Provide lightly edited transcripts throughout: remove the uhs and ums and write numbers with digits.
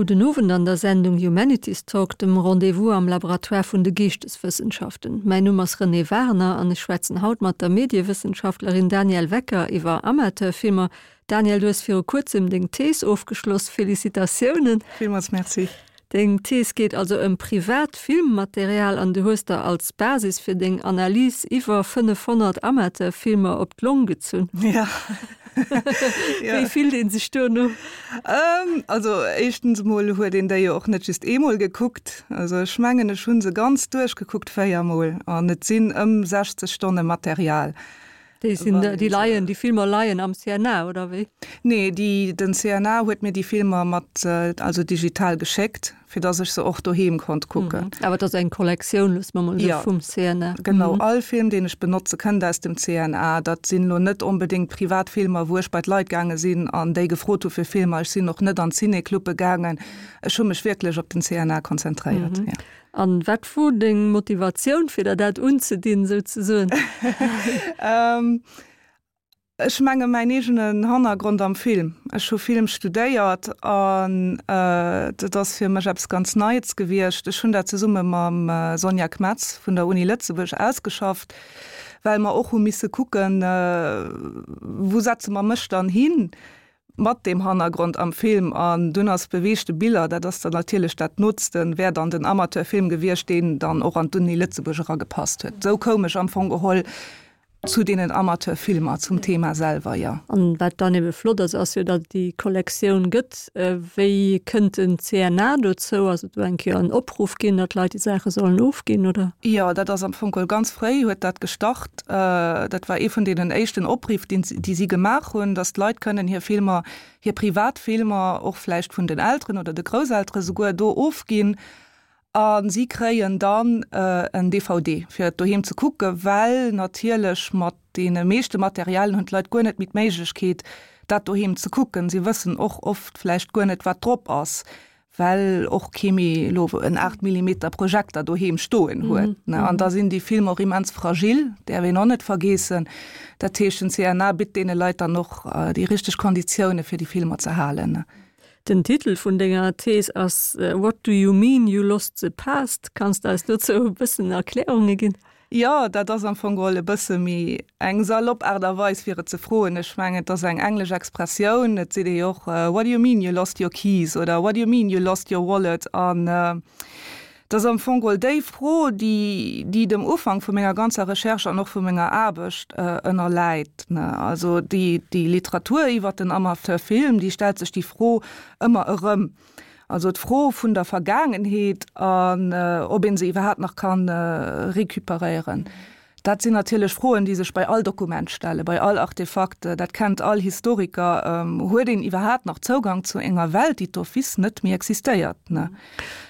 Gudden Owend an der Sendung Humanities Talk, dem Rendez-vous am Laboratoire vun de Geeschteswëssenschaften. Mäin Numm ass Renée Wagener an ech schwätzen haut mat der Mediewëssenschaftlerin Danièle Wecker iwwer Amateurfilmer. Danièle, du hues viru kuerzem deng Thees ofgeschloss. Felicitatiounen! Villmools Merci. Deng Thees geet also ëm privat Filmmaterial an du hues der als Basis fir deng Analys iwwer 500 Amateurfilmer op d'Long gezunn. Ja. Wéi fillt een sech duerno? Also éischtens emol huet een déi jo och net just eemol gekuckt. Also ech mengen ech hu se ganz duerchgekuckt, véiermol, an et sinn ëm 60 Stonne Material. Déi sinn, déi leien, déi Filmer leien am CNA, oder wéi? Nee, déi, den CNA huet mir déi Filmer mat, also digital geschéckt, fir dass ech se och doheem konnt kucken. Awer et ass eng Kollektioun, loosse mer mol esou, vum CNA. Genau, all Film, deen ech benotze, kënnt aus dem CNA. Dat sinn elo net onbedéngt privat Filmer, wou ech bei d'Leit gaange sinn an déi gefrot hu fir Filmer. Ech sinn och net an Ciné-Clube gaangen. Ech hu mech wierklech op den CNA konzentréiert, jo. An wat wor deng Motivatioun fir der dat unzedinn souzesoen? Ech menge mäin eegenen Hannergrond am Film. Ech hu Film studéiert an dat ass fir mech eppes ganz Neits gewiescht. Ech hunn dat zesumme mam Sonja Kmetz vun der Uni Lëtzebuerg ausgeschafft, well mer och hu misse kucken, wou setze mer mech dann hin? Mat deem Hannergrond am Film an dunn ass beweegte Biller, dat ass dann natierlech dat Nootsten, wär dann den Amateurfilm gewiescht, deen dann och an d'Uni Lëtzebuerg eragepasst huet. Esou koum ech am Fong geholl zu deenen Amateurfilmer, zum Thema selwer, jo. An wat dann ebe flott ass, ass jo, datt et déi Kollektioun gëtt. Wéi kënnt den CNA dozou? Ass et do eng Kéier en Opruff ginn, datt d'Leit déi Saache sollen ofginn, oder? Jo, dat ass am Fong geholl ganz fréi huet dat gestart. Dat war ee vun deenen éischten Opriff, déi si gemaach hunn, datt d'Leit kënnen hir Filmer, hir privat Filmer, och vläicht vun den Elteren oder de Grousseltere souguer, do ofginn. A si kréien dann en DVD, fir et doheem ze kucken, well natierlech mat deene meeschte Materialien hunn d'Leit guer net méi d'Méiglechkeet, dat doheem ze kucken. Si wëssen och oft vläicht guer net, wat drop ass. well och kee méi elo en 8 Millimeter Projekter doheem stoen huet. Mm -hmm. An da sinn déi Filmer och immens fragil, däerf een och net vergeessen. Dat heescht, den CNA bitt deene Leit dann och äh, déi richteg Konditioune fir déi Filmer ze halen. Den Titel vun denger Thees ass äh, What do you mean you lost the past? Kanns de eis dozou e bëssen Erklärunge ginn? Jo, dat ass am Fong geholl e bësse méi eng salopp Aart a Weis, fir et ze froen. Ech mengen, et ass eng englesch Expressioun. Et seet ee jo och, What do you mean you lost your keys? oder What do you mean you lost your wallet? An et ass am Fong geholl déi Fro, déi, déi dem Ufank vu menger ganzer Recherche an och vu menger Aarbecht ënnerläit. Also déi, déi Literatur iwwert den Amateurfilm, déi stellt sech déi Fro ëmmer erëm. Also d'Fro vun der Vergaangenheet an ob ee se iwwerhaapt nach ka recuperéieren. Dat sinn natierlech Froen, déi sech bei all Dokument stellen, bei all Artefakt. Dat kennt all Historiker. Huet een iwwerhaapt nach Zougang zu enger Welt, déi d'office net méi existéiert?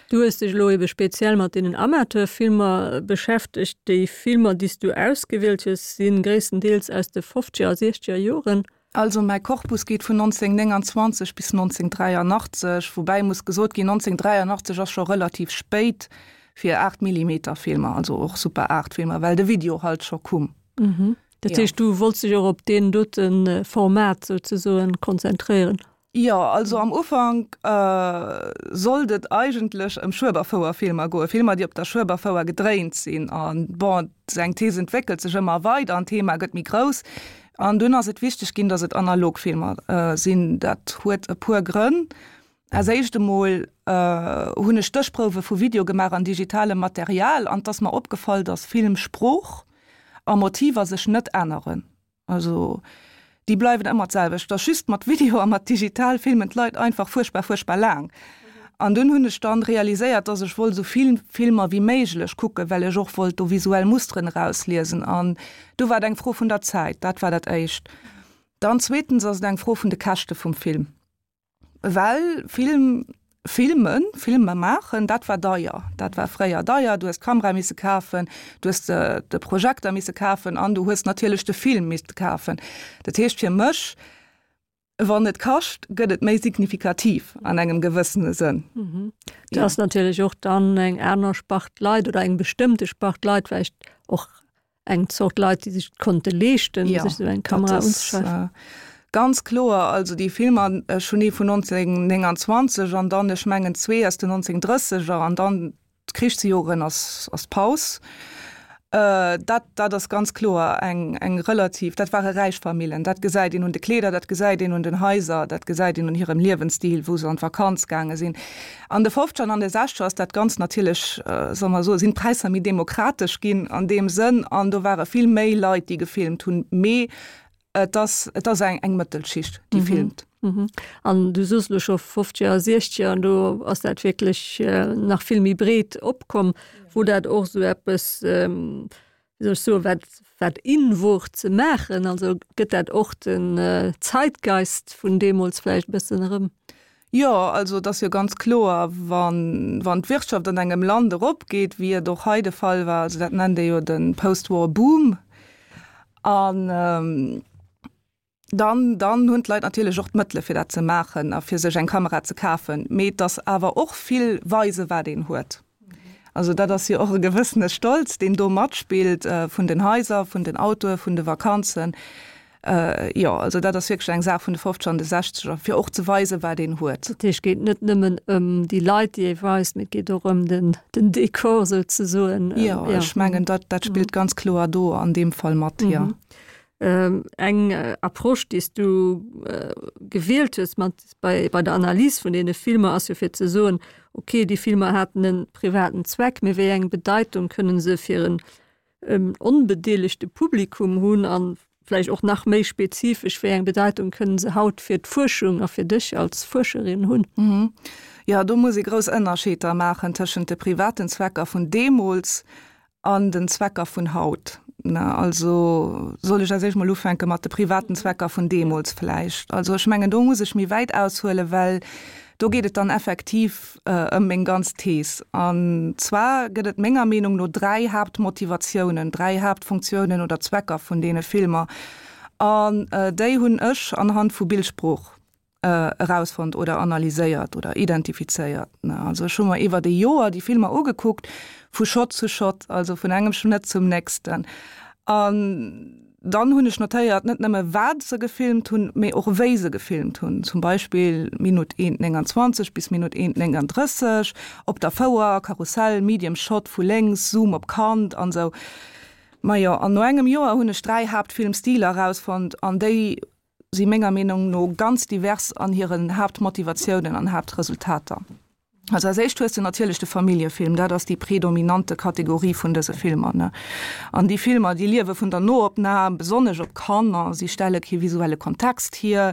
Du hues dech elo ebe speziell mat deenen Amateurfilmer beschäftegt. Déi Filmer, déi s du ausgewielt hues, si gréisstendeels aus de fofzeger a siechzeger Joren. Also mäi Korpus geet vun 1929 bis 1983, woubäi muss gesot ginn, 1983 ass scho relativ spéit fir 8 Millimeter Filmer, also och Super 8 Filmer, well de Video halt scho kumm. Dat heescht, du wollts dech och op deen dote Format souzesoen konzentréieren? Jo, also am Ufank sollt et eigentlech ëm Schueberfouer-Filmer goen, Filmer, déi op der Schueberfouer gedréint sinn. An bon, eng Thees entwéckelt sech ëmmer weider an d'Thema gëtt méi grouss. An dunn ass et wichteg ginn, datt et analog Filmer sinn. Dat huet e puer Grënn. Als éischt emol hunn ech Stéchprouwe vu Video gemaach an digitalem Material an 't ass mer opgefall, datt Filmsprooch a Motiver sech net änneren. Also déi bleiwen ëmmer d'selwecht. Et ass just mat Video a mat digital filmen d'Leit einfach fuerchtbar, fuerchtbar laang. An dunn hunn ech dann realiséiert, dass ech wollt esou vill Filmer wéi méiglech kucken, well ech och wollt do visuell Musteren erausliesen. An du war et eng Fro vun der Zäit, dat war dat éischt. Dann zweetens ass et eng Fro vun de Käschte vum Film. Well Film filmen, Filmer maachen, dat war deier. Dat war fréier deier. Du hues d'Kamera misse kafen, du hues de Projekter misse kafen an du hues natierlech de Film misste kafen. Dat heescht fir mech, wann et kascht, gëtt et méi signifikativ an engem gewëssene Sënn. Dat ass natierlech och dann eng aner Spart Leit oder eng bestëmmte Spart Leit, vläicht och eng Zort Leit, déi sech et konnte leeschten, ja, sech esou eng Kamera unzeschafen. Ganz kloer, also déi Filmer, ech hunn ee vun 1929 an dann, ech mengen zwee aus den 1930er an dann d'Krichsjoren ass ass d'Paus. Dat dat ass ganz kloer eng eng relativ, dat ware räich Famillen. Dat gesäit een un de Kleeder, dat gesäit een un den Haiser, dat gesäit een un hirem Liewensstil, wou se an d'Vakanz gaange sinn. An de Fofzeger an an de Sechzeger ass dat Ganzt natierlech, solle mer soen, sinn d'Präisser méi demokratesch ginn an deem Sënn an do ware vill méi Leit, déi gefilmt hunn. Mee Et ass, et ass eng, eng Mëttelschicht, déi filmt. An du soos elo scho Fofzeger a Siechzeger, an do ass dat wierklech nach vill méi breet opkomm, wou dat och esou eppes, wéi soll ech soen, wat, wat in wor ze maachen. Also gëtt dat och den Zeitgeist vun deemools vläicht e bëssen erëm? Jo, also et ass jo ganz kloer, wann, wann d'Wirtschaft an engem Land eropgeet, wéi et och hei de Fall war, also dat nennt ee jo de Post-War Boom, an dann, dann hunn d'Leit natierlech och d'Mëttele fir dat ze maachen a fir sech eng Kamera ze kafen. Mee et ass awer och vill weise wat een huet. Also dat ass jo och e gewëssene Stolz, deen do matspillt, vun den Haiser, vun den Autoe, vun de Vakanzen. Jo, also dat ass wierklech eng Saach vun de Fofzeger an de Sechzeger, fir och ze weisen, wat een huet. Dat heescht, et geet net nëmmen ëm déi Leit, déi ee weist, mee et geet och ëm den, den Dekor souzesoen. Jo, ech mengen, dat, dat spillt ganz kloer do an deem Fall mat, jo. Eng Approche, déi s du gewielt hues mat bei, bei der Analys vun deene Filmer, ass jo fir ze soen, okay, déi Filmer haten e privaten Zweck, mee wéi eng Bedeitung kënnen se fir en onbedeelegte Publikum hunn an vläicht och nach méi spezifesch, wéi eng Bedeitung kënnen se haut fir d'Fuerschung a fir dech als Fuerscherin hunn? Jo, do muss ee grouss Ënnerscheeder maachen tëschent de privaten Zwecker vun deemools An den Zwecker vun haut. Also soll ech als éischt mol ufänke mat de privaten Zwecker vun deemools vläicht? Also ech mengen, do muss ech méi wäit aushuelen, well do geet et dann effektiv ëm meng ganz Thees. An zwar gëtt et menger Meenung no dräi Haaptmotivatiounen, dräi Haaptfunktiounen oder Zwecker vun deene Filmer. An déi hunn ech anhand vu Bildsprooch erausfonnt oder analyséiert oder identifizéiert. Also ech hu mer iwwert e Joer déi Filmer ugekuckt, vu Shot zu Shot, also vun engem Schnëtt zum nächsten. An dann hunn ech notéiert, net nëmme wat se gefilmt hunn, mee och wéi se gefilmt hunn. Zum Beispill Minutt 1,29 bis Minutt 1,39 op der Fouer, Karussell, Medium Shot vu lénks, Zoom op Kand an esou. Majo, an no engem Joer hunn ech dräi Haaptfilmstiler erausfonnt an déi si menger Meenung no ganz divers an hiren Haaptmotivatiounen an Haaptresultater. Also als éischt hues de natierlech de Familljefilm, dat ass déi predominante Kategorie vun dëse Filmer, ne. An déi Filmer, déi liewe vun der Noopnam, besonnesch op Kanner, si stelle kee visuelle Kontext hier,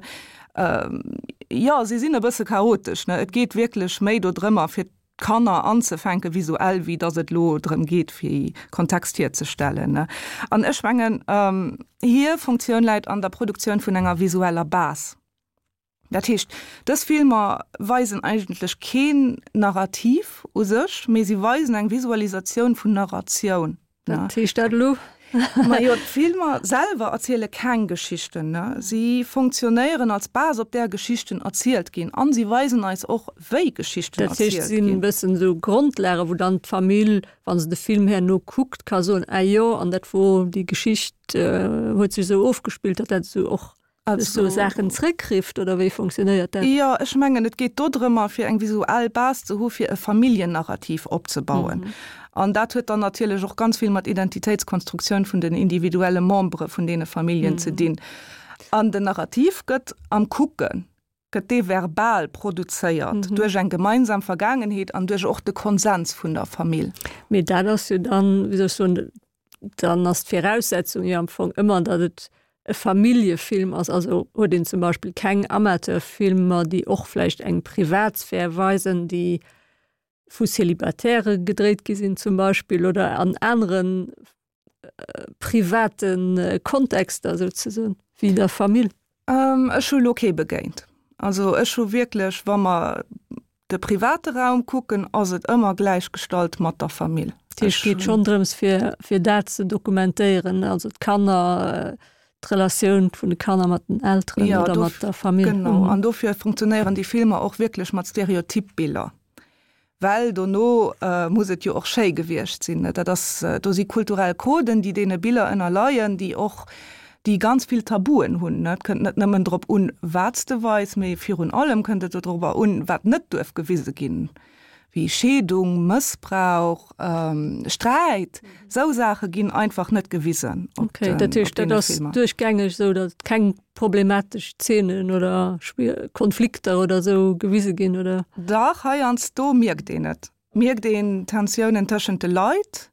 jo, si sinn e bësse chaotesch, ne. Et geet wierklech méi dodrëmmer, fir d'Kanner anzefänken visuell, wéi datt et elo drëm geet, fir Kontext hierzestellen. An ech mengen, hir Funktioun läit an der Produktioun vun enger visueller Base. Dat heescht, dës Filmer weisen eigentlech keen Narrativ u sech, mee si weisen eng Visualisatioun vun Narratioun. Wat heescht dat elo? Majo, d'Filmer selwer erziele keng Geschichten, ne? Si funktionéieren als Base, op där Geschichten erzielt ginn. An si weisen eis och, wéi Geschichten erzielt ginn. Dat heescht, et sinn e bëssen esou Grondlagen, wou dann d'Famill, wa se de Film herno kuckt, ka soen, Ah jo, an dat wor déi Geschicht huet sech esou ofgespillt, datt dat esou och Also, Saachen zréckrifft oder wéi funktionéiert dat? Jo, ech mengen, et geet dodrëmmer, fir eng visuell Base ze hu fir e Familljennarrativ opzebauen. Mhm. An dat huet dann natierlech och ganz vill mat Identitéitskonstruktioun vun den individuelle Membere vun deene Familljen mhm. ze dinn. An den Narrativ gëtt am Kucken, gëtt dee verbal produzéiert mhm. duerch eng gemeinsam Vergaangenheet an duerch och de Konsens vun der Famill. Mee dat ass jo dann, wéi soll ech soen, dann ass d'Viraussetzung jo am Fong ëmmer, datt et e Familljefilm ass. Also huet een zum Beispill keng Amateurfilmer, déi och vläicht eng Privatsphär weisen, déi vu Célibatairë gedréit gi sinn zum Beispill oder an anere private Kontexter souzesoen wéi der Famill. Ech hu lo kee begéint. Also ech hu wierklech, wa mer de private Raum kucken, ass et ëmmer gläichgestallt mat der Famill. Dat heescht, et geet schonn drëms, fir, fir dat ze dokumentéieren, also d'Kanner, d'Relatioun vun de Kanner mat den Elteren ja, oder mat der Famill. Genau, an dofir funktionéieren déi Filmer och wierklech mat Stereotypbiller. Well dono muss et jo och schéi gewiescht sinn. Dat ass, do si kulturell Coden, déi deene Biller ënnerleien, déi och. déi ganz vill Tabuen hunn. Et kënnt net nëmmen drop un, wat s de weis, mee virun allem kënnt et dorobber un, wat net duerf gewise ginn, wéi Scheedung, Mëssbrauch, Sträit. Esou Saache ginn einfach net gewisen op Okay, dat heescht, dat ass duerchgängeg esou, datt keng problematesch Zeenen oder Konflikter oder esou gewise ginn, oder? Dach, heiansdo mierkt een et. Mierkt een Tensiounen tëschent de Leit,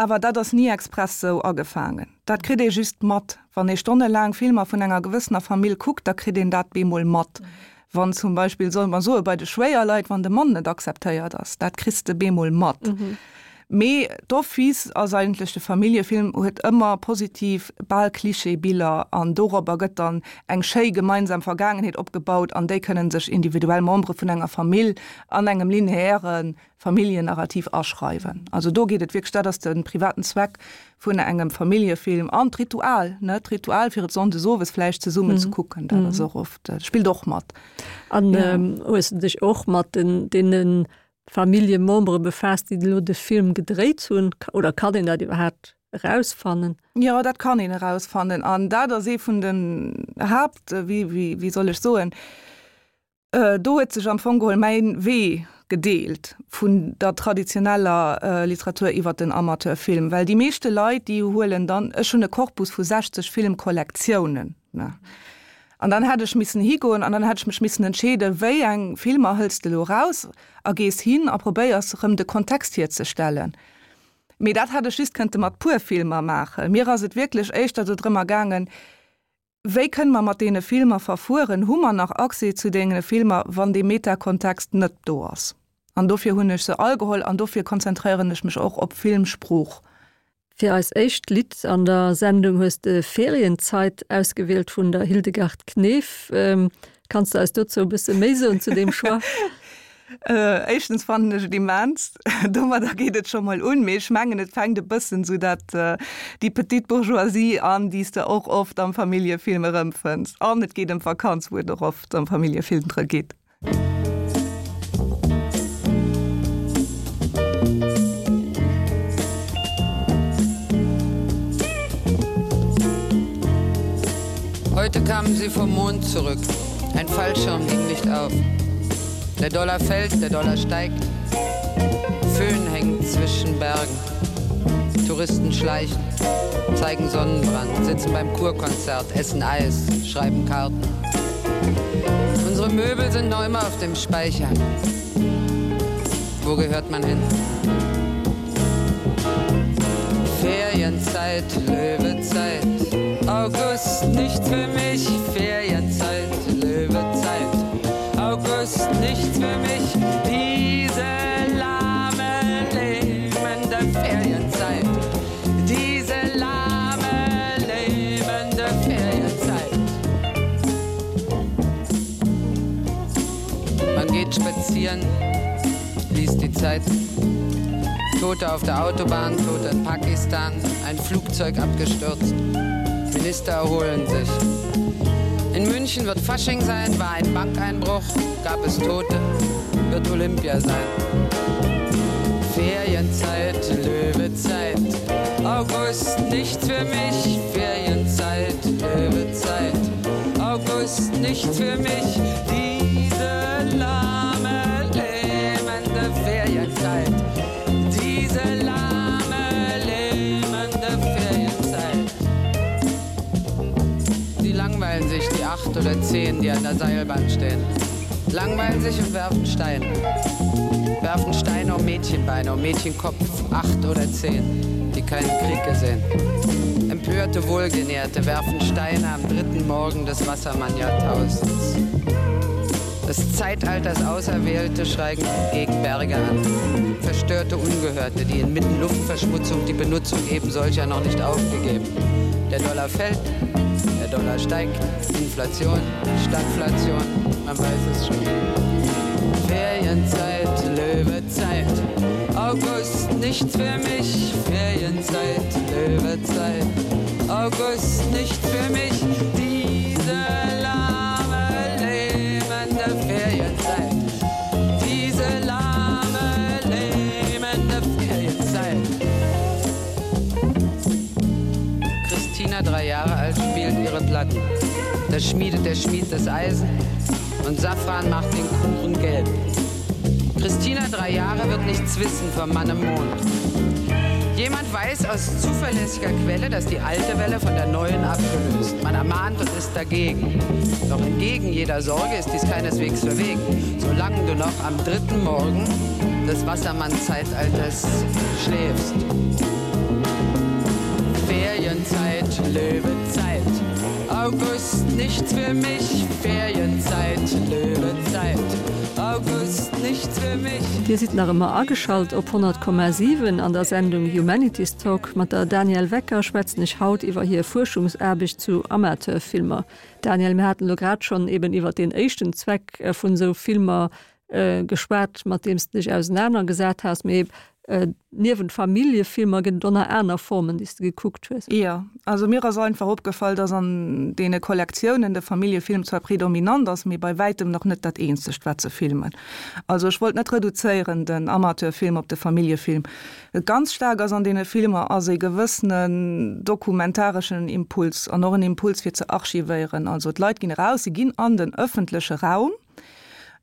awer dat ass ni express sou agefaangen. Dat kritt ee just mat. Wann ee stonnelaang Filmer vun enger gewëssener Famill kuckt, da kritt een dat bemol mat. Wann zum Beispill, solle mer soen, bei de Schwéierleit, wann de Mann net akzeptéiert ass, dat kriss de bemol mat. Mee d'office ass eigentlech, de Familljefilm huet ëmmer positiv, bal Klischee-Biller an dorobber gëtt dann eng schéi gemeinsam Vergaangenheet opgebaut an déi kënnen sech individuell Membere vun enger Famill an engem lineäre Familljennarrativ aschreiwen. Also do geet et wierklech, dat ass de privaten Zweck vun engem Familljefilm an d'Ritual, ne, d'Ritual fir et sonndes owes vläicht zesummen ze kucken, dat ass och oft, spillt och mat. An hues de dech och mat den deene Familljemembere befaasst, déi elo de Film gedréit hunn, oder kann een dat iwwerhaapt erausfannen? Jo, dat kann een erausfannen an dat ass ee vun den Haapt, wéi, wéi, wéi soll ech soen, do huet sech am Fong geholl mäin Wee gedeelt vun der traditioneller Literatur iwwer den Amateurfilm, well déi meeschte Leit, déi huelen dann, ech hunn e Korpus vu 60 Filmkollektiounen, ne, An dann hätt ech missen higoen an dann hätt ech mech missen entscheeden, wéi eng Filmer hëls de elo eraus a gees hin a probéiers erëm de Kontext hierzestellen. Mee dat hätt ech just kënnte mat puer Filmer maachen. Mir ass et wierklech éischter do drëmmer gaangen, wéi kënne mer mat deene Filmer verfueren, hu mer nach Accès zu deene Filmer, wann dee Metakontext net do ass. An dofir hunn ech se all geholl an dofir konzentréieren ech mech och op Filmsprooch. Fir eis éischt Lidd an der Sendung hues de Ferienzeit ausgewielt vun der Hildegard Knef. Kanns de eis dozou e bësse méi soen zu deem Choix? Éischtens fannen ech et immens, domadder geet et scho mol un, mee ech mengen et fänkt e bëssen esou dat déi petite bourgeoisie an, déi s de och oft am Familljefilm erëmfënns. An et geet ëm d'Vakanz, wou et och oft am Familljefilm drë geet. Heute kamen sie vom Mond zurück. Ein Fallschirm ging nicht auf. Der Dollar fällt, der Dollar steigt. Föhn hängt zwischen Bergen. Touristen schleichen, zeigen Sonnenbrand, sitzen beim Kurkonzert, essen Eis, schreiben Karten. Unsere Möbel sind noch immer auf dem Speicher. Wo gehört man hin? Ferienzeit, Löwezeit, August nichts für mich, Ferienzeit, Löwezeit, August nichts für mich, diese lahme lebende Ferienzeit, diese lahme lebende Ferienzeit. Man geht spazieren, liest die Zeit. Tote auf der Autobahn, Tote in Pakistan, ein Flugzeug abgestürzt. Minister erholen sich. In München wird Fasching sein, war ein Bankeinbruch, gab es Tote, wird Olympia sein. Ferienzeit, Löwezeit, August nichts für mich, Ferienzeit, Löwezeit, August nichts für mich, diese lahme lähmende Ferienzeit, diese lahme lähmende Ferienzeit. Sie langweilen sich die acht oder zehn, die an der Seilbahn stehen. Langweilen sich und werfen Steine. Werfen Steine um Mädchenbeine, um Mädchenkopf, acht oder zehn, die keinen Krieg gesehen. Empörte Wohlgenährte werfen Steine am dritten Morgen des Wassermannjahrtausends. Des Zeitalters Auserwählte schreigen gegen Berge an. Verstörte Ungehörte, die inmitten Luftverschmutzung die Benutzung eben solcher noch nicht aufgegeben. Der Dollar fällt, der Dollar steigt, Inflation, Stagflation, man weiß es schon. Ferienzeit, Löwezeit, August nichts für mich, Ferienzeit, Löwezeit, August nicht für mich, diese lahme lähmende Ferienzeit, diese lahme lähmende Ferienzeit. Christina, drei Jahre alt. ihre Platten. Da schmiedet der Schmied das Eisen und Safran macht den Kuchen gelb. Christina drei Jahre wird nichts wissen vom Mann im Mond. Jemand weiß aus zuverlässiger Quelle, dass die alte Welle von der neuen abgelöst. Man ermahnt und ist dagegen. Doch entgegen jeder Sorge ist dies keineswegs verwegen, solange du noch am dritten Morgen des Wassermann-Zeitalters schläfst. Ferienzeit, Löwezeit. August nichts für mich, Ferienzeit, Löwezeit. August nichts für mich. Dir sidd nach ëmmer ageschalt op 100,7 an der Sendung Humanities Talk. Mat der Danièle Wecker schwätzen ech haut iwwer hir Fuerschungsaarbecht zu Amateurfilmer. Danièle, mir haten elo grad schonn eben iwwer deen éischten Zweck vun esou Filmer geschwat, mat deem s de dech ausenanergesat has. Mee niewent Familljefilmer gëtt et och nach aner Formen, déi s de gekuckt hues. Jo, also mir ass einfach opgefall, dass an deene Kollektiounen de Familljefilm zwar predominant ass, mee bei wäitem nach net dat eenzegt, wat se filmen. Also ech wollt net reduzéieren den Amateurfilm op de Familljefilm. Wat ganz staark ass an deene Filmer, ass e gewëssenen dokumentareschen Impuls an och en Impuls fir ze archivéieren. Also d'Leit ginn eraus, se ginn an den ëffentleche Raum,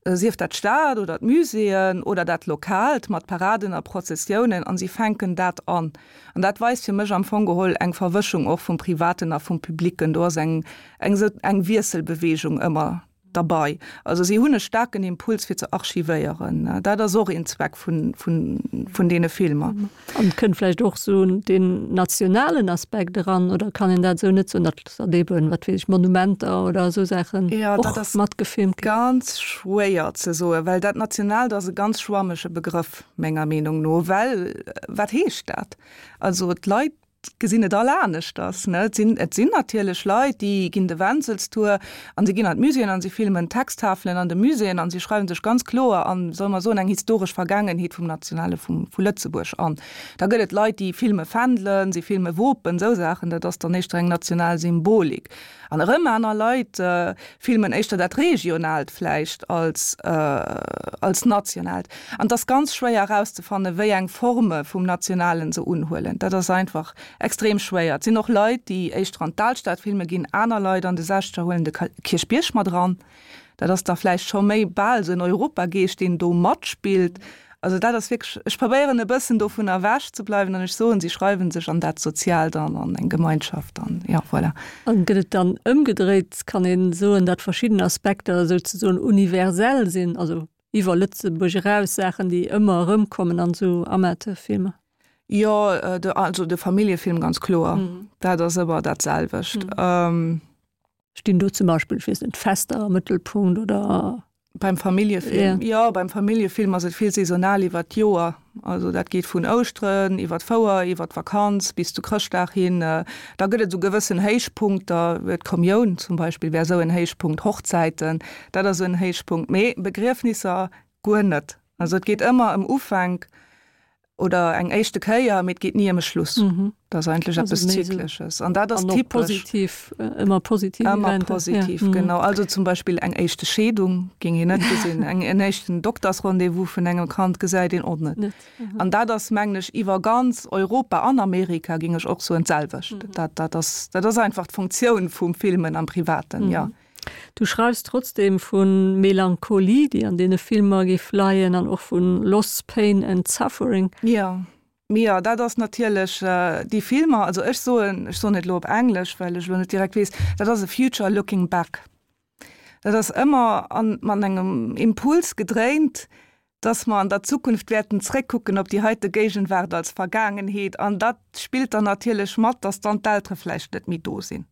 sief dat d'Stad oder d'Muséeën oder dat Lokaalt mat Paraden a Prozessiounen, an si fänken dat an. An dat weist fir mech am Fong geholl eng Verwëschung och vum Privaten a vum Publicken. Do ass eng eng esou eng Wiesselbewegung ëmmer derbei. Also si hunn e staarken Impuls fir ze archivéieren. Dat ass och een Zweck vun vun vun deene Filmer. An et kënnt vläicht och esou deen nationalen Aspekt eran, oder kann een dat esou net soen, datt datt eeben, wat weess ech, Monumenter oder esou Saachen och matgefilmt ginn? Jo, dat ass ganz schwéier ze soen, well dat Nationaalt ass e ganz schwammege Begrëff menger Meenung no, well wat heescht dat? Also d'Leit gesinn et all aneschters. Ne? Et sinn, et sinn natierlech Leit, déi ginn de Wenzelstour an se ginn an d'Muséeën an se filmen Texttafelen an de Muséeën an se schreiwen sech ganz kloer an, solle mer soen, eng historesch Vergaangenheet vum Nationale vum, vu Lëtzebuerg an. Da gëtt et Leit, déi filme Fändelen, se filme Wopen, esou Saachen, dat ass dann éischter eng national Symbolik. An erëm aner Leit filmen éischter dat Regionaalt vläicht als, als Nationaalt. An et ass ganz schwéier erauszefannen, wéi eng Forme vum Nationalen se unhuelen. Dat ass einfach extrem schwéier. Et sinn och Leit, déi éischter an d'Alstad filme ginn, aner Leit an de Sechzeger huelen de Kierchbierg mat eran. Dat ass da vläicht scho méi bal esou en Europageescht, deen do matspillt. Also dat ass wierklech, ech probéieren e bëssen dovun ewech ze bleiwen an ech soen, si schreiwen sech an dat Soziaalt an, an eng Gemeinschaft an, jo, voilà. An gëtt et dann ëmgedréit, kann ee soen, datt verschidden Aspekter souzesoen universell sinn, also iwwer Lëtzebuerg eraus, Saachen, déi ëmmer erëmkommen an esou Amateurfilmer? Jo, de, also de Familljefilm ganz kloer, dat ass ëmmer dat selwecht. Stinn do zum Beispill, ech weess net, Fester am Mëttelpunkt oder? Beim Familljefilm? Ja. Jo, beim Familljefilm ass et vill saisonal iwwer d'Joer. Also dat geet vun Ouschteren iwwer d'Fouer, iwwer d'Vakanz bis zu Chrëschtdag hin. Da gëtt et esou gewëssen Héichpunkter, d'Kommioun zum Beispill wär esou en Héichpunkt, Hochzäiten, dat ass esou en Héichpunkt, mee Begriefnisser guer net. Also et geet ëmmer ëm Ufänk Oder eng éischte Kéier, mee et geet ni ëm e Schluss. Dat ass eigentlech eppes Zyklesches. An dat ass typesch. Positiv, ëmmer positiv Ëmmer positiv, genau. Also zum Beispill eng éischte Scheedung géing een net gesinn. Eng, en éischten Doktersrendez-vous vun engem Kand gesäit een och net. An dat ass, mengen ech, iwwer ganz Europa an Amerika, géing ech och soen, d'selwecht. Dat, dat ass, dat ass einfach d'Funktioun vum Filmen am Privaten, jo. Du schreifs trotzdem vu Melancholie, déi an deene Filmer géif leien, an och vu Loss, Pain and Suffering. Jo, mee jo, dat ass natierlech déi Filmer, also ech soen, ech soen et elo op Englesch, well ech elo net direkt weess, dat ass a future looking back. Dat ass ëmmer an, mat engem Impuls gedréint, dass mer an der Zukunft wäerten zréckkucken op déi heite Géigenwaart als Vergaangenheet an dat spillt dann natierlech mat, dass dann d'Eltere vläicht net méi do sinn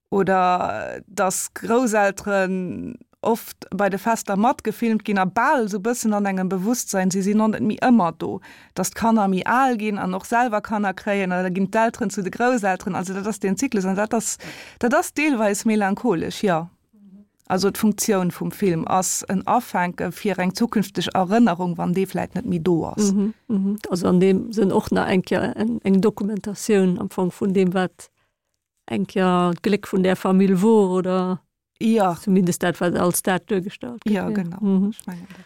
oder dass Grousselteren oft bei de Fester matgefilmt ginn a bal esou bëssen an engem Bewusstsein, si sinn och net méi ëmmer do, dass d'Kanner méi al ginn an och selwer Kanner kréien an da ginn d'Elteren zu de Grousselteren. Also dat ass deen Zyklus an dat ass, dat ass deelweis melancholesch, jo. Also d'Funktioun vum Film ass en Afänke fir eng zukünfteg Erënnerung, wann dee vläit net méi do ass. Also an deem Sënn och nach eng Kéier eng Dokumentatioun am Fong vun deem, wat eng Kéier d'Gléck vun där Famill wor oder jo. zumindest dat, wat als dat duergestallt gëtt. Jo, genau. Ech mengen dat.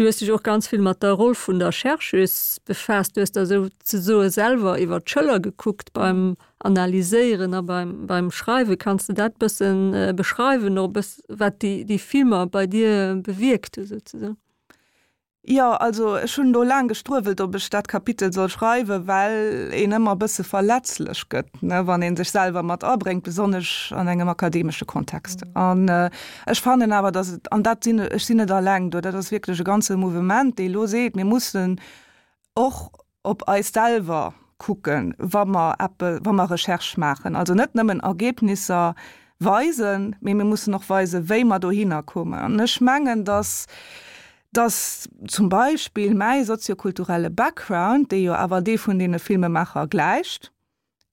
Du hues dech och ganz vill mat der Roll vun der Chercheuse befaasst. Du hues der souzesoe selwer iwwer d'Schëller gekuckt beim Analyséieren a beim, beim Schreiwen. Kanns de dat bëssen beschreiwen, och e bëss wat déi, déi Filmer bei dir bewierkt hu souzesoen? Jo, also ech hunn do laang gestruewelt, ob ech dat Kapitel soll schreiwen, well een ëmmer e bësse verletzlech gëtt, ne, wann ee sech selwer mat abréngt, besonnesch an engem akademesche Kontext. An ech fannen awer, datt et, an dat sinn, ech sinn net alleng do, dat ass wierklech e ganze Mouvement, dee elo seet, mir mussen och op eis selwer kucken, wa mer eppe, wa mer Recherche maachen. Also net nëmmen Ergebnisser weisen, mee mir mussen och weisen, wéi mer dohinner kommen. An ech mengen, dass, dass zum Beispill mäi soziokulturelle Background, dee jo awer dee vun deene Filmemaacher gläicht,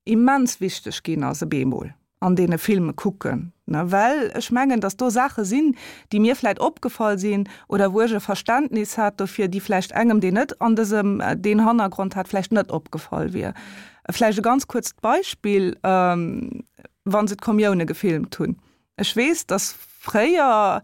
immens wichteg ginn ass e beemol an deene Filme kucken, ne, well ech mengen, datt do Saache sinn, déi mir vläicht opgefall sinn oder wou ech e Verständnis hat dofir, déi vläicht engem, deen net an dësem deen Hannergrond hat, vläicht net opgefall wier. Vläicht e ganz kuerzt Beispill, wa se d'Kommioune gefilmt hunn. Ech weess, datt fréier,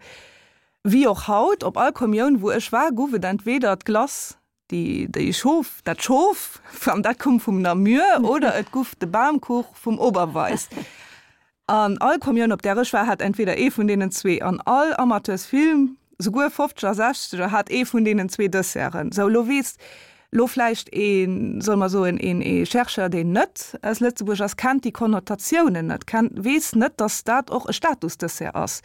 wéi och haut, op all Kommioun, wou ech war, gouf et entweder d'Glace Déi, déi Schof, dat Schof, an dat koum vum Namur, oder et guff de Bamkuch vum Oberweis. An all Kommioun, op där ech war, hat entweder ee vun deenen zwee. An all Amateursfilm, souguer Fofzeger, Sechzeger, hat ee vun deenen zwee Desserten. Sou, lo weess lo vläicht een, solle mer soen, een, ee Chercheur, deen net aus Lëtzebuerg ass, kennt déi Konnotatiounen net, kennt, weess net, datt dat och e Statusdessert ass.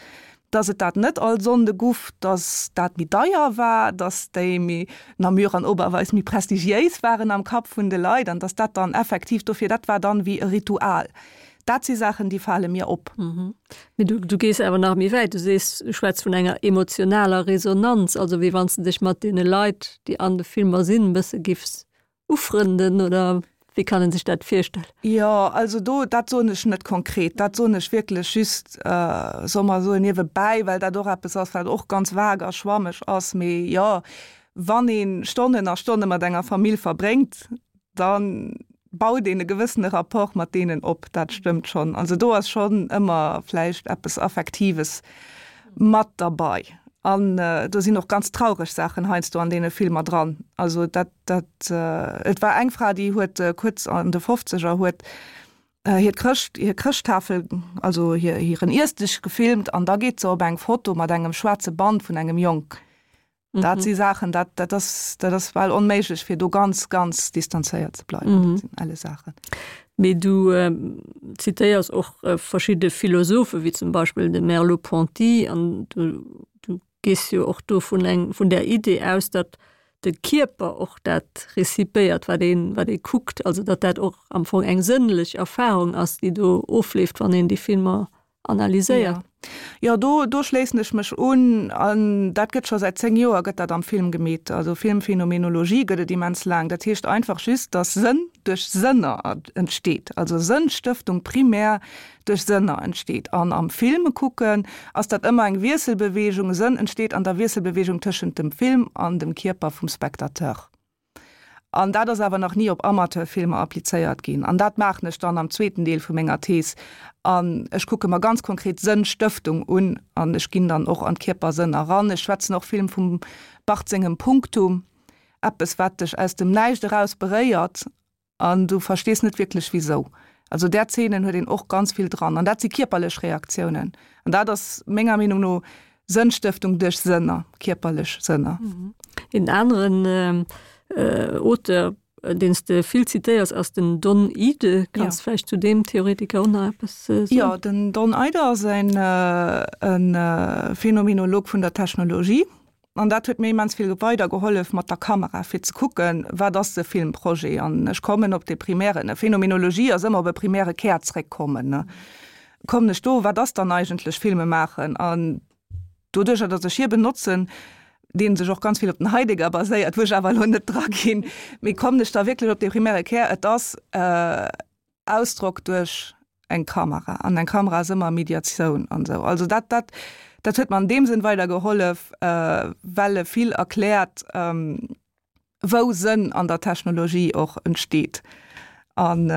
dass et dat net all Sonnde guff, dass dat méi deier war, dass déi méi Namur an Oberweis méi prestigiéis waren am Kapp vun de Leit an dass dat dann effektiv dofir, dat war dann wéi e Ritual. Dat si Saachen, déi fale mir op. Mee du, du gees awer nach méi wäit, du sees, du schwätz vun enger emotionaler Resonanz, also wéi wann s de dech mat deene Leit, déi an de Filmer sinn, e bësse giffs Ufrënden oder wéi kann en sech dat virstellen? Jo, also do, dat soen ech net konkret, dat soen ech wierklech just, solle mer soen, niewebäi, well dat och eppes ass, wat och ganz vag a schwammeg ass. Mee jo, wann ee Stonnen a Stonne mat enger Famill verbréngt, da baut een e gewëssene Rapport mat deenen op, dat stëmmt schonn. Also do ass schonn ëmmer vläicht eppes Affektives mat derbei. An do sinn och ganz traureg Saachen heiansdo an deene Filmer dran. Also dat, dat, et war eng Fra, déi huet kuerz an de Fofzeger huet hiert Chrëscht, hir Chrëschttafel, also hir, hiren Iessdësch gefilmt an da geet se op eng Foto mat engem schwaarze Band vun engem Jong. Dat si Saachen, dat, dat ass, dat ass bal onméiglech, fir do ganz, ganz distanzéiert ze bleiwen. Dat sinn elle Saachen. Mee du zitéiers och verschidde Philosophen, wéi zum Beispill de Merleau-Ponty, an du, du gees jo och do vun eng, vun där Idee aus, datt de Kierper och dat rezipéiert, wat een, wat ee kuckt, also datt dat och am Fong eng sënnlech Erfahrung ass, déi do ofleeft, wann een déi Filmer analyséiert. Jo, do, do schléissen ech mech un. An dat gëtt scho säit 10 Joer gëtt dat am Film gemeet. Also Filmphenomenologie gëtt et immens laang. Dat heescht einfach just, datt Sënn duerch Sënner entsteet. Also Sënnstëftung primär duerch Sënner entsteet. An am Film kucken ass dat ëmmer eng Wiesselbewegung. Sënn entsteet an der Wiesselbewegung tëschent dem Film an dem Kierper vum Spectateur. An dat ass awer nach ni op Amateurfilmer applizéiert ginn. An dat maachen ech dann am zweeten Deel vu menger Thees. An ech kucke mer ganz konkret Sënnstëftung un an ech ginn dann och an d'Kierpersënn eran. Ech schwätzen och vill vum Barthes sengem Punktum, eppes wat dech aus dem Näischt eraus beréiert an du verstees net wierklech wisou. Also där Zeenen huet een och ganz vill dran an dat si kierperlech Reaktiounen. An dat ass menger Meenung no Sënnstëftung duerch Sënner, kierperlech Sënner. Een aneren Auteur, deen s de vill zitéiers, ass den Don Ihde. Kanns de vläicht zu deem Theoretiker och nach eppes soen? Jo, den Don Ihde ass e Phänomenolog vun der Technologie. An dat huet mir immens vill weider gehollef mat der Kamera, fir ze kucken, wat ass de Filmprojet. An ech kommen op de primären, Phänomenologie ass ëmmer op e primäre Kär zréckkommen, ne. Kommen ech do, wat ass dann eigentlech Filme maachen? An doduercher, datt ech hie benotzen, dee sech och ganz vill op den Heidegger baséiert, wou ech awer elo net draginn, mee kommen ech da wierklech op de primäre Kär, et ass, Ausdrock duerch eng Kamera an eng Kamera ass ëmmer Mediatioun an esou. Also dat, dat, dat huet mer an deem Sënn weider gehollef, well e vill erkläert, wou Sënn an der Technologie och entsteet. An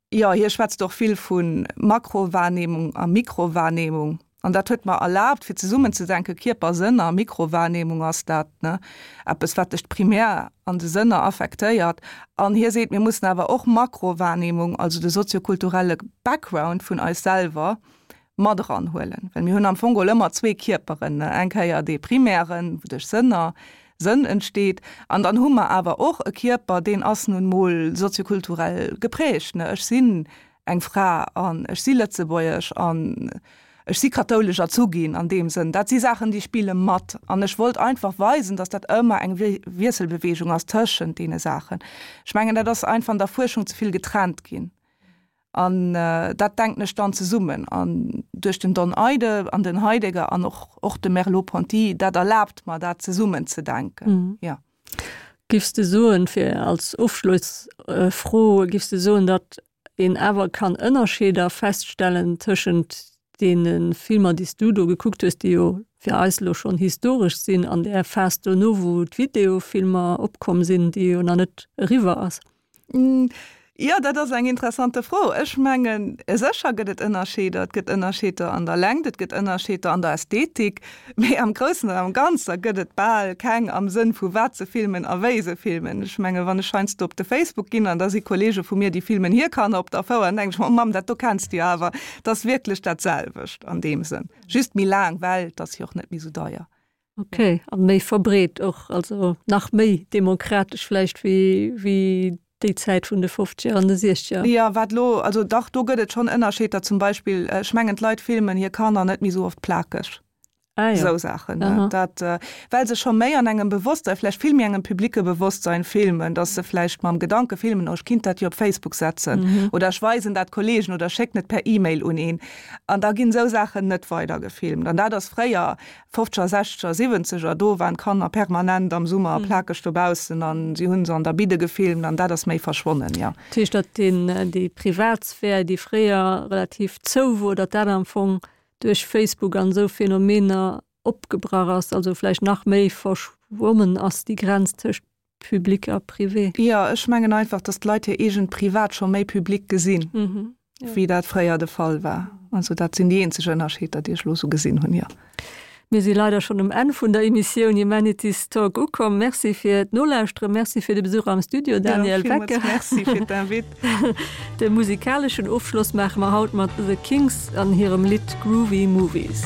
jo, hie schwätzt och vill vu Makrowahrnehmung a Mikrowahrnehmung. An dat huet mer erlaabt, fir zesummen ze denken, Kierper, Sënner, Mikrowahrnehmung ass dat, ne, eppes, wat dech primär an de Sënner affektéiert. An hie seet, mir mussen awer och Makrowahrnehmung, also de soziokulturelle Background vun eis selwer, mat eranhuelen. Well mir hunn am Fong geholl ëmmer zwee Kierperen, ne, eng Kéier dee primären, wou duerch Sënner, Sënn entsteet, an dann hu mer awer och e Kierper, deen ass nun mol soziokulturell geprägt, ne, ech sinn eng Fra an ech si Lëtzebuergesch an ech si kathoulesch erzu ginn an deem Sënn. Dat si Saachen, déi spille mat. An ech wollt einfach weisen, datt dat ëmmer eng Wiesselbeweegung ass tëschent deene Saachen. Ech mengen, dat ass einfach an der Fuerschung ze vill getrennt ginn. An dat denken ech dann zesummen. An duerch den Don Eide an den Heidegger an och och de Merleau-Ponty, dat erlaabt mer, dat zesummen ze denken. Jo. Giffs de soen, fir als Ofschlossfro, giffs de soen, datt een awer kann Ënnerscheeder feststellen tëschent deene Filmer, déi s du do gekuckt hues, déi jo fir eis elo schonn historesch sinn, an där Phas dono, wou d'Videofilmer opkomm sinn, déi jo nach net eriwwer ass? Jo, dat ass eng interessante Fro. Ech mengen, sécher gëtt et Ënnerscheeder. Et gëtt Ënnerscheeder an der Längt, et gëtt Ënnerscheeder an der Ästhetik, mee am Groussen an am Ganzer gëtt et bal keng am Sënn vu wat se filmen a wéi se filmen. Ech mengen, wann ech heiansdo op de Facebook ginn an da si Kollege vu mir, déi filmen hir Kanner op der Fouer, dann denken ech mer, oh Mamm, dat do kenns de jo awer. Et ass wierklech dat selwecht an deem Sënn, just méi laang, well et ass jo och net méi sou deier. Ok, an méi verbreet och, also nach méi demokratesch vläicht wéi wéi déi Zäit vun de Fofzeger an de Siechzeger. Jo, wat elo, also dach, do gëtt et schonn Ënnerscheeder. Zum Beispill, ech mengen, d'Leit filmen hir Kanner net méi esou oft plakeg. Ah jo. Esou Saachen, ne? Dat, well se scho méi an engem Bewosstsein, vläicht vill méi engem publique Bewosstsein filmen, datt se vläicht mam Gedanke filmen, oh, ech kinnt dat jo op Facebook setzen oder ech weisen dat Kollegen oder schécken et per E-Mail un een. An da ginn esou Saachen net weider gefilmt. An dat ass fréier Fofzeger, Sechzeger, Siwwenzeger, do waren d'Kanner permanent am Summer plakeg dobaussen an si hunn se an der Bidde gefilmt an dat ass méi verschwonnen, jo. Dat heescht, datt deen, déi Privatsphär, déi fréier relativ zou wor, datt dat am Fong duerch Facebook an esou Phänomener opgebrach ass, also vläicht nach méi verschwommen ass, déi Grenz tëscht Public a Privé. Jo, ech mengen einfach, dass d'Leit hir eegent Privat scho méi public gesinn, wéi dat fréier de Fall war. Also dat sinn déi eenzeg Ënnerscheeder, déi ech elo esou gesinn hunn, jo. Mir si leider schonn um Enn vun der Emissioun Humanities Talk ukomm. Merci fir d'Nolauschteren, Merci fir de Besuch am Studio, Danièle Wecker. Jo, villmools Merci fir d'Invite. De musikaleschen Ofschloss maache mer haut mat The Kinks an hirem Lidd Groovy Movies.